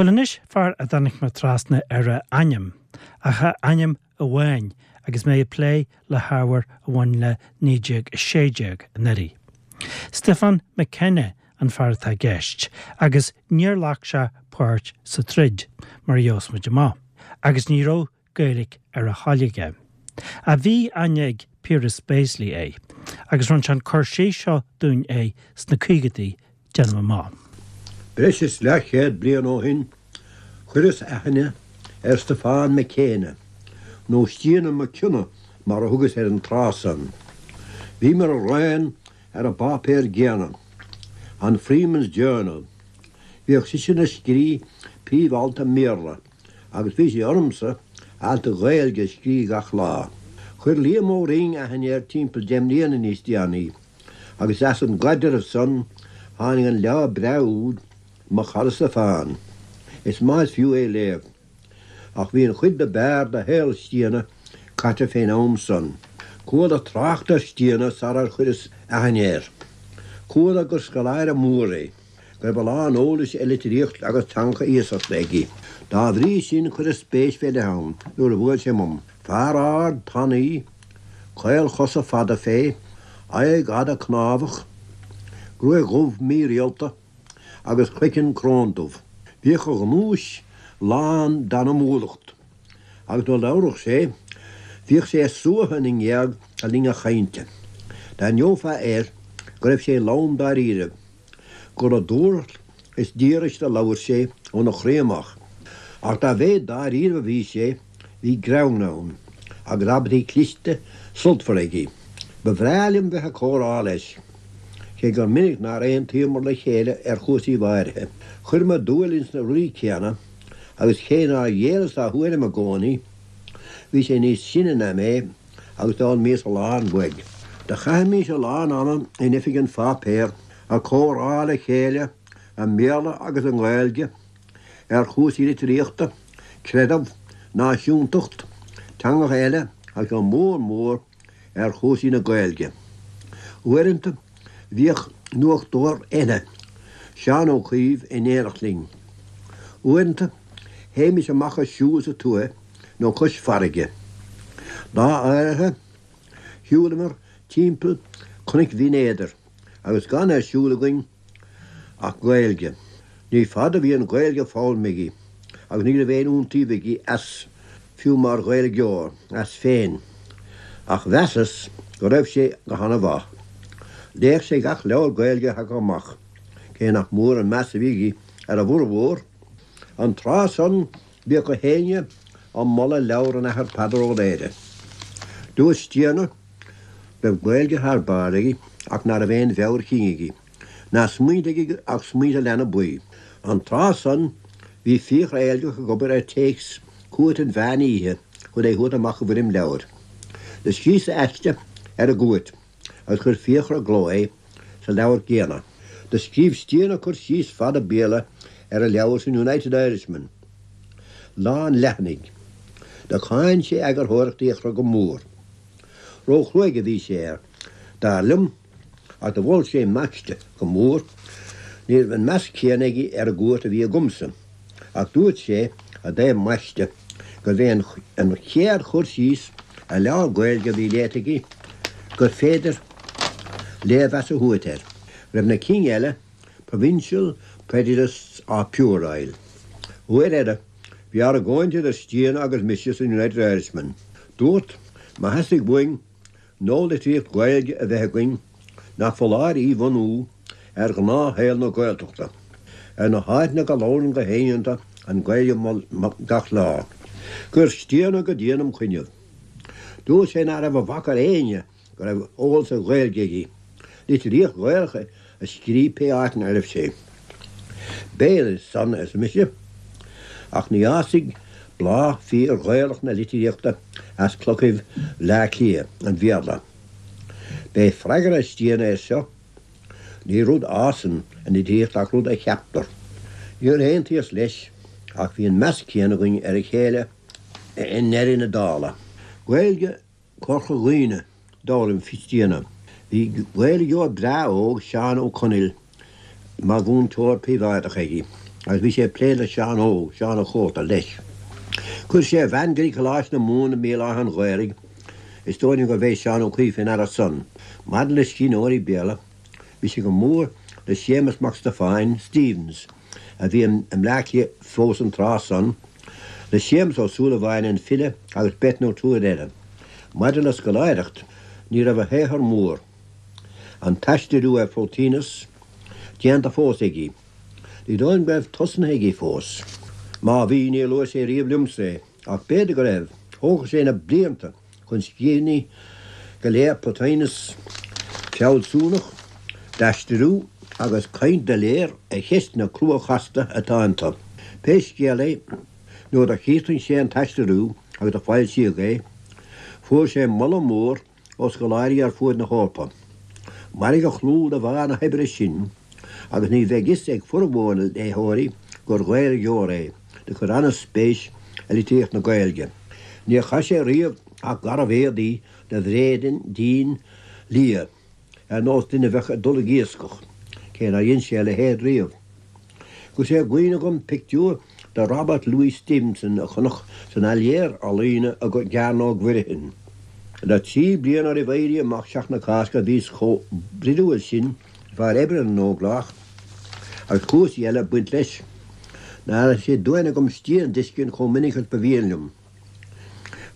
Bhuel anois, fear a dtáinig mé trasna ar a ainm, ach a ainm amháin, agus mé ag plé le hábhar a bhain le 1916 anuraidh. Stiofán McKenna an fear atá i gceist, agus níor ghlac sé páirt sa troid, mar a gheobhas muid amach, agus ní raibh Gaeilge ar a thoil aige. Ach bhí aithne ag Piaras Béaslaí air, agus rinne sé an cur síos seo dúinn air sna caogaidí, déanaim amach. Breis is leathchéad bliain ó shin chuireas aithne ar Stiofán Mac Éanna, nó Stiana Mac Cionnaith mar a thugas air an tráth san. Bhíomar araon ar an bpáipéar gcéanna, an Freeman's Journal. Bhíodh seisean ag scrí príomh-alt i mBéarla agus bhí sé ormsa alt Gaeilge a scrí gach lá. Chuir Liam Ó Rinn aithne air timpeall deich mbliana níos déanaí agus as an gcaidreamh san tháinig an leabhar breá úd Mo Chara Stiofán. Is maith is fiú é léamh. Ach bhí an chuid do b'fhearr de shaol Stiana caite fén am san. Chuala trácht ar Stiana sarar chuireas aithne air. Chuala gur scoláire mór é. go raibh a lán eolais ar litríocht agus teangacha iasachta aige. Dá bhrí sin chuireas spéis fé leith ann nuair a bhuail sé uaim. Fear ard, tanaí, caolchosa fada fé, aghaidh fhada cnámhach, gruaig dhubh mhírialta agus craiceann cróndubh. Bhíodh a ghnúis lán d'anamúlacht agus nuair a labhradh sé bhíodh sé ag suaitheadh na ngéag le linn a chainte. D'aithneofá air go raibh sé lom dáiríre. gur le dúthracht is díograis a labhair sé óna chroí amach. Ach dá mhéad dáiríre a bhí sé, bhí greann ann, agus abairtí cliste sultmhara aige. Ba bhreá liom bheith ag comhrá leis, cé gur minic nár aontaíomar le chéile ar chúrsaí áirithe. Chuireamar dúil ins na rudaí céanna, agus cé nár ghéilleas dá thuairim i gcónaí, bhí sé níos sine ná mé, agus d'fhoghlaimíos a lán uaidh. Do chaithimís a lán ama in oifig an pháipéir ag comhrá le chéile i mBéarla agus i nGaeilge ar chúrsaí litríochta, creideamh, náisiúntacht, teangacha eile agus go mór mór ar chúrsaí na Gaeilge. Uaireanta bhíodh nuachtóir eile, Seán Ó Caoimh, in éineacht linn. Uaireanta théimis amach ag siúl sa tuaith nó cois farraige. Lá áirithe, shiúlamar timpeall Chnoic Bhinn Éadair agus gan ar siúl againn ach Gaeilge. Ní fada a bhí an Ghaeilge foghlamtha aige agus ní raibh aon iontaoibh aige as, fiú mar Ghaeilgeoir, as féin, ach mheasas go raibh sé go hana-mhaith. Léadh sé gach leabhar Gaeilge a thagadh amach, cé nach mór an meas a bhí aige ar a bhformhór. An tráth san Bhíodh gach éinne á moladh leabhar an Athar Peadar Ó Laoghaire. Dúirt Stiana go raibh Gaeilge thar barr aige ach ná raibh aon mheabhair chinn aige, ná smaointe aige ach smaointe leanbh buí. An tráth san bhí Fiachra Eilgeach ag obair ar téacs Cúirt an Mheán Oíche chun é thabhairt amach i bhfoirm leabhair. Do scríos aiste ar an gcúirt agus chuir Fiachra i gcló é sa leabhar gcéanna. Do scríobh Stiana cur síos fada Béarla ar an leabhar san United Irishman, lán leathanaigh. Do cháin sé eagarthóireacht Fhiachra go mór. Ró-chruaidh a bhí sé air, dar liom, ach do mhol sé m'aiste go mór. Ní raibh an meas céanna aige ar an gcúirt a bhí agamsa. Ach dúirt sé i dtaobh m'aiste gurbh é an chéad chur síos ar leabhar Gaeilge a bhí léite aige gur féidir léirmheas a thabhairt air, go raibh na cinn eile provincial, prejudiced or puerile. Uair eile, bhí argóint idir Stiana agus mise san United Irishman. Dúrt, má theastaigh uainn nualitríocht Ghaeilge a bheith againn nach foláir í bhunú ar ghnáthshaol na Gaeltachta, ar na háiteanna go labhrann gach éinne iontu an Ghaeilge gach lá. Chuir Stiana go dian im choinnibh. Dúirt sé ná raibh a bhac ar éinne go raibh eolas ar Ghaeilge aige, litríocht Ghaelach a scríobh pé áit 'na raibh sé. B'fhéidir san, arsa mise, ach ní fhásfaidh bláth fíor-Ghaelach na litríochta as clochaibh Bhleá Cliath an Bhéarla. B'é freagra Stiana air seo, Ní rud a fhásann an litríocht ach rud a cheaptar. Níor aontaíos leis, ach bhí an meas céanna againn ar a chéile i ndeireadh na dála. Gaeilge Chorca Dhuibhne, d'fhoghlaim Stiana. Bhí Gaeilgeoir breá óg, Seán Ó Conaill, mar mhúinteoir príobháideach aige. Agus bhí sé ag plé le Seán Óg, Seán a' Chóta, leis. Chuir sé a bhean go dtí Coláiste na Mumhan i mBéal Átha an Ghaorthaidh. Is dóigh liom gurbh é Seán Ó Cuív fé ndeara san. Maidir le scríbhneoirí Béarla, bhí sé go mór le Séamus Mac Stiofáin, Stephens, a bhí i mBleá Cliath fós an tráth san, le Séamus Ó Súilleabháin, an file, agus beirt nó triúr eile. Maidir le scoláireacht, ní raibh a shaothar mór, an t-aistriú ar Phlotinus, déanta fós aige. Ní dóigh liom go raibh tosnaithe aige fós. Má bhí, níor luaigh sé riamh liomsa é, ach b'fhéidir go raibh. Thógfadh sé na blianta chun scríbhinní go léir Plotinus fealsúnacht, d'aistriú agus caint doiléir ar cheisteanna crua chasta atá iontu. Pé scéal é, nuair do chríochnaigh sé an t-aistriú agus do foilsíodh é, fuair sé moladh mór ó scoláirí ar fuaid na hEorpa. Mairfidh a chlú de bharr na hoibre sin agus ní bheidh fhios ag formhór na léitheoirí gur Ghaeilgeoir é do chuir ana-spéis i litríocht na Gaeilge. Níor chaith sé riamh ach garbh-éadaí de bhréidín dín liath ar nós duine a bheadh ag dul ag iascach, cé nár dhein sé a leithéid riamh. Go raibh sé i gcuimhne agam pictiúr de Robert Louis Stevenson a chonac san Atelier Ealaíne i gCearnóg Mhuirfean. Le 3 bliana roimh Éirí Amach Sheachtain na Cásca bhíos chomh broidiúil sin le fear oibre na nÓglach agus cúrsaí eile ag baint leis ná raibh sé d'uain agam Stian a d'fheiscint chomh minic agus ba mhian liom.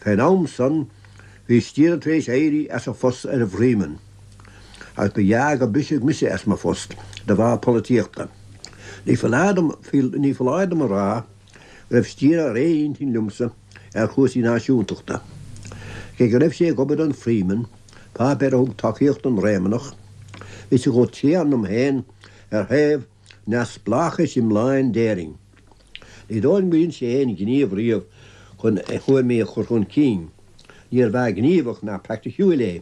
Fén am san bhí Stian tar éis éirí as a phost ar an bhFreeman agus ba ghearr gur briseadh mise as mo phost de bharr polaitíochta. Ní foláir dom ní foláir dom a rá go raibh Stian ar aon intinn liomsa ar chúrsaí náisiúntachta. Cé go raibh sé ag obair don Freeman, páipéar a thug tacaíocht don Réamannach, bhí sé chomh tréan liom féin ar thaobh neamhspleáchais iomláin d'Éirinn. Ní dóigh liom gur dhein sé aon ghníomh riamh chun a thuairimí a chur chun cinn. Níorbh fhear gníomhach ná praiticiúil é,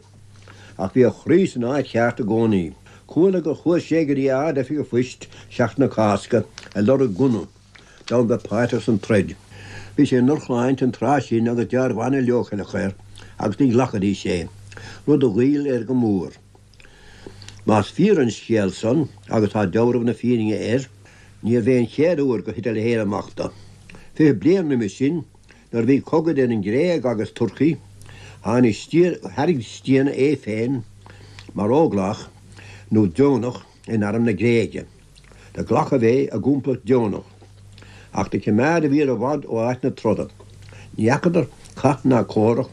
ach bhí a chroí san áit cheart i gcónaí. Chuala gur chuaigh sé go dtí Ard-Oifig an Phoist Seachtain na Cásca ag lorg gunna d'fhonn bheith páirteach san troid. Bhí sé i ndrochshláinte an tráth sin agus dealramh an-leochaileach air agus ní ghlacfaidís é, rud a ghoill air go mór. Más fíor an scéal san, agus tá deabhramh na fírinne air, níorbh é an chéad uair gur thit a leithéid amach dó. 20 bliain roimhe sin, nuair a bhí cogadh idir an Ghréig agus Turcaí, tháinig thairg Stian é féin mar óglach nó deonach in arm na Gréige. Do glacadh é i gcomplacht deonach, ach do cimeádadh iad i bhfad ó áit na troda. Ní fheacadar cath ná comhrac,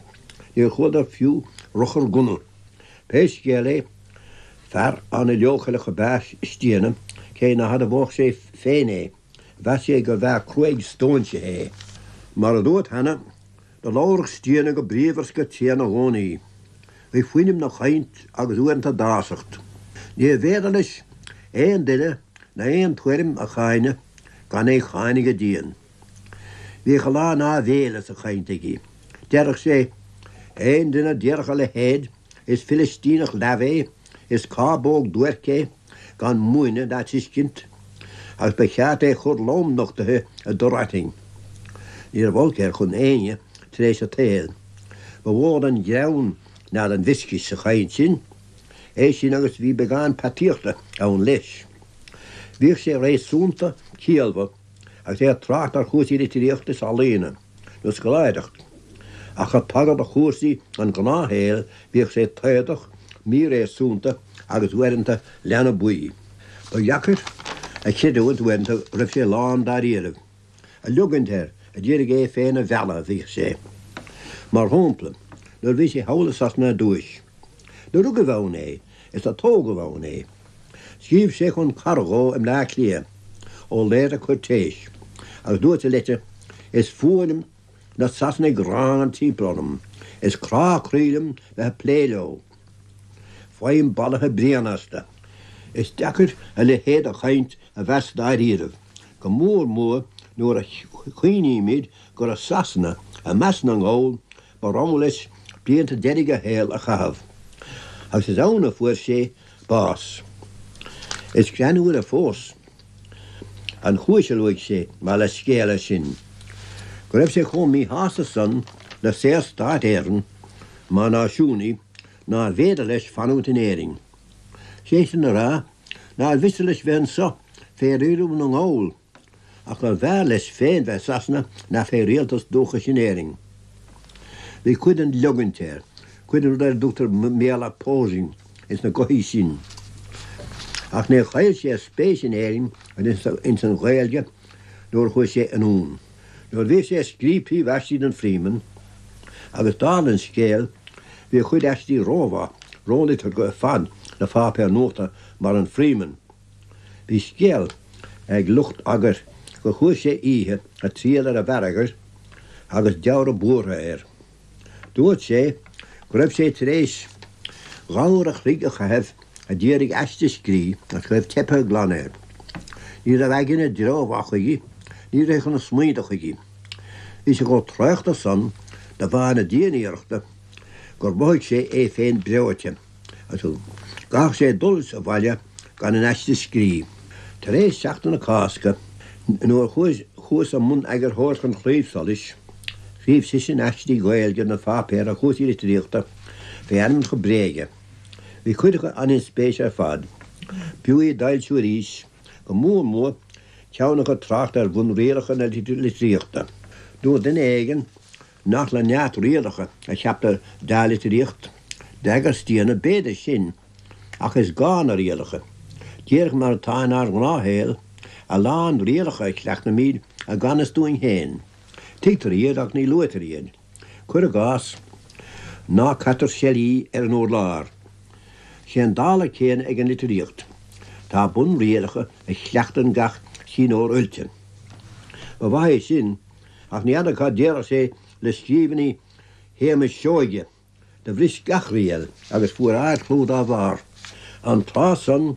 níor chualadar fiú ruchar gunna. Pé scéal é, fear ana-leochaileach ab ea Stiana, cé ná hadmhódh sé féin é, mheas sé gurbh fhear cruaidh stóinsithe é. Mar a dúrt cheana, do labhradh Stiana go bríomhar 's go tréan i gcónaí. Bhí fuinneamh 'na chaint agus uaireanta dásacht. Níorbh fhéidir leis aon duine ná aon tuairim a cháineadh gan é cháineadh go dian. Bhíodh a lán áibhéile sa chaint aige. Deireadh sé, Aon duine a déarfadh a leithéid, is Filistíneach leamh é, is cábóg duairc é, gan múineadh ná tuiscint, agus ba cheart é chur lomnochtaithe i dtor aitinn. Ní raibh olc air chun éinne tar éis an tsaoil. Ba mhó den ghreann ná den mhioscais sa chaint sin, é sin agus bhí beagán peataíochta ann leis. Bhíodh sé réasúnta ciallmhar. agus é ag trácht ar chúrsaí litríochta is ealaíona, nó scoláireacht, ach ag tagairt do chúrsaí an ghnáthshaoil bhíodh sé taodach, míréasúnta agus uaireanta leanbaí. Ba dheacair a chreidiúint uaireanta go raibh sé lán dáiríribh. Ag liogaint air, a d'iarraidh é féin a mhealladh a bhíodh sé. Mar shampla, nuair a bhí sé thall i Sasana ar dtúis. Do rugadh ann é, is do tógadh ann é. Scríobh sé chun cara dhó i mBleá Cliath, Ó Laoire Cúirtéis, agus dúirt sa leitir, Is fuath liom na Sasanaigh gránna timpeall orm, is crá croí liom bheith ag plé leo. Faighim balaithe bréana astu. Is deacair a leithéid de chaint a mheas dáiríribh, go mór mór nuair a chuimhnímid gur i Sasana, i measc na nGall, Ba rogha leis blianta deiridh a shaoil a chaitheamh, agus is ann a fuair sé bás. Is greannmhaire fós an chúis a luaigh sé mar leithscéal air sin, go raibh sé chomh míshásta san le Saorstát Éireann mar náisiúnaí nárbh fhéidir leis fanúint in Éirinn. Sé sin le rá, nár mhiste leis bheith anso fé rialú na nGall. Ach gurbh fhearr leis féin bheith i Sasana ná fé rialtas dúchais in Éirinn. Bhí cuid den liogaint air, cuid den rud ar a dtugtar i mBéarla posing ins na gothaí sin. Ach níor chaill sé a spéis in Éirinn agus ins an Ghaeilge nuair a chuaigh sé anonn. Nuair a bhíodh sé ag scríobh príomhaistí don Freeman, agus dála an scéil, bhí a chuid aistí rómhaith, róliteartha ar fad do pháipéar nuachta mar an Freeman. Bhí scéal ag lucht eagair gur chuaigh sé oíche ag triall ar an bhfear eagair agus deabhradh buartha air. Dúirt sé go raibh sé tar éis dhá uair a chloig a chaitheamh a d'iarraidh aiste a scrí ach go raibh teipthe glan air. Ní raibh aigne i dtreo mhaith chuige, ní rithfeadh na smaointe chuige. Bhí sé chomh traochta san de bharr na dianiarrachta gur mhothaigh sé é féin breoite. agus go gcaithfeadh sé dul sa bhaile gan an aiste scrí. Tar éis Seachtain na Cásca, nuair a chuas i mbun eagarthóireachta an Chlaímh Solais, scríobh seisean aistí Gaeilge don pháipéar ar chúrsaí litríochta fé ainmneacha bréige. Bhí cuid acu an-inspéise ar fad. B'fhiú iad d'fhoilsiú arís, go mór mór ceann acu ag trácht ar bhunrialacha na litríochta. Dúirt duine éigin Nach le neart rialacha a cheaptar dea-litríocht? D'fhreagair Stiabhna, B'fhéidir sin, ach is gá na rialacha. Díreach mar atá inár ngnáthshaol, a lán rialacha a chleachtaimid i gan fhios dúinn féin. Tuigtear iad ach ní luaitear iad. Cuir i gcás, ná caitear seilí ar an urlár. Sé an dála céanna ag an litríocht. Tá bunrialacha a chleachtann gach scríbhneoir oilte. Ba mhaith é sin Ach ní fheadar cad déarfadh sé le scríbhinní Shéamais Seoige, do bhris gach riail agus fuair ard-chlú dá bharr. An tráth san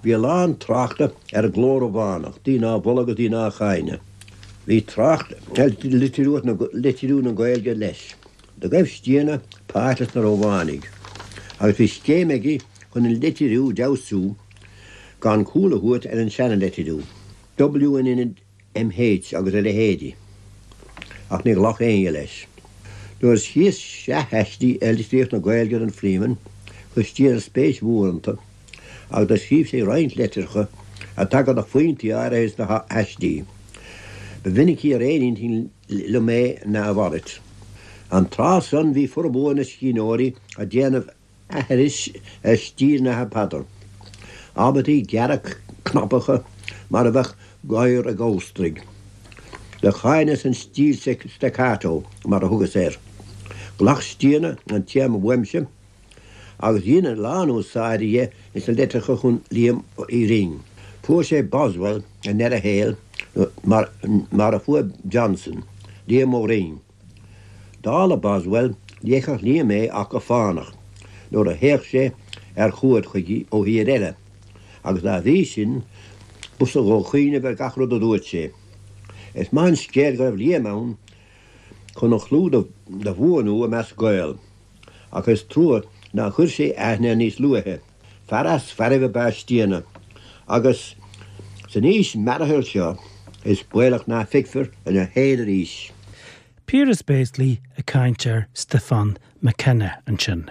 bhí a lán tráchta ar an gcló Rómhánach, daoine á mholadh agus daoine á cháineadh. Bhí trácht ar litriú na Gaeilge leis. Do ghaibh Stiabhna páirt leis na Rómhánaigh agus bhí scéim aige chun an litriú d'fheabhsú gan cúl a thabhairt ar an seana-litriú. W in ionad MH agus a leithéidí, ach ní ghlac éinne leis. Nuair a scríos sraith aistí ar litríocht na Gaeilge don Freeman, chuir Stiabhna spéis mhór iontu, agus do scríobh sé roinnt litreacha ag tagairt do phointí áirithe sna haistí. Ba mhinicí ar aon intinn liom é ná a mhalairt. An tráth san bhí formhór na scríbhneoirí ag déanamh aithris ar stíl an Athar Peadar. Abairtí gearra cnapacha mar a bheadh gadhar ag amhantraigh. Do cháineas an stíl staccato, mar a thugas air. Ghlac Stiabhna an téarma uaimse agus dhein a lán úsáide dhe ins na litreacha chun Liam Uí Rinn. Fuair sé Boswell i ndeireadh a shaoil mar a fuair Johnson, Liam Ó Rinn. Dála Boswell, léifeadh Liam é ach go fánach, nuair a théadh sé ar chuaird chuige ó thír eile, agus dá bhrí sin, b'fhusa dhó cuimhneamh ar gach rud a dúirt sé. Is maith an scéal go raibh Liam ann chun a chlú do bhuanú i measc Gael, ach is trua nár chuir sé aithne air níos luaithe. Fear as fearaibh ab ea Stiabhna, agus san aois mearaithe seo is baolach ná feicfear ina shaol arís. Piaras Béaslaí ag caint ar Stiofán McKenna ansin.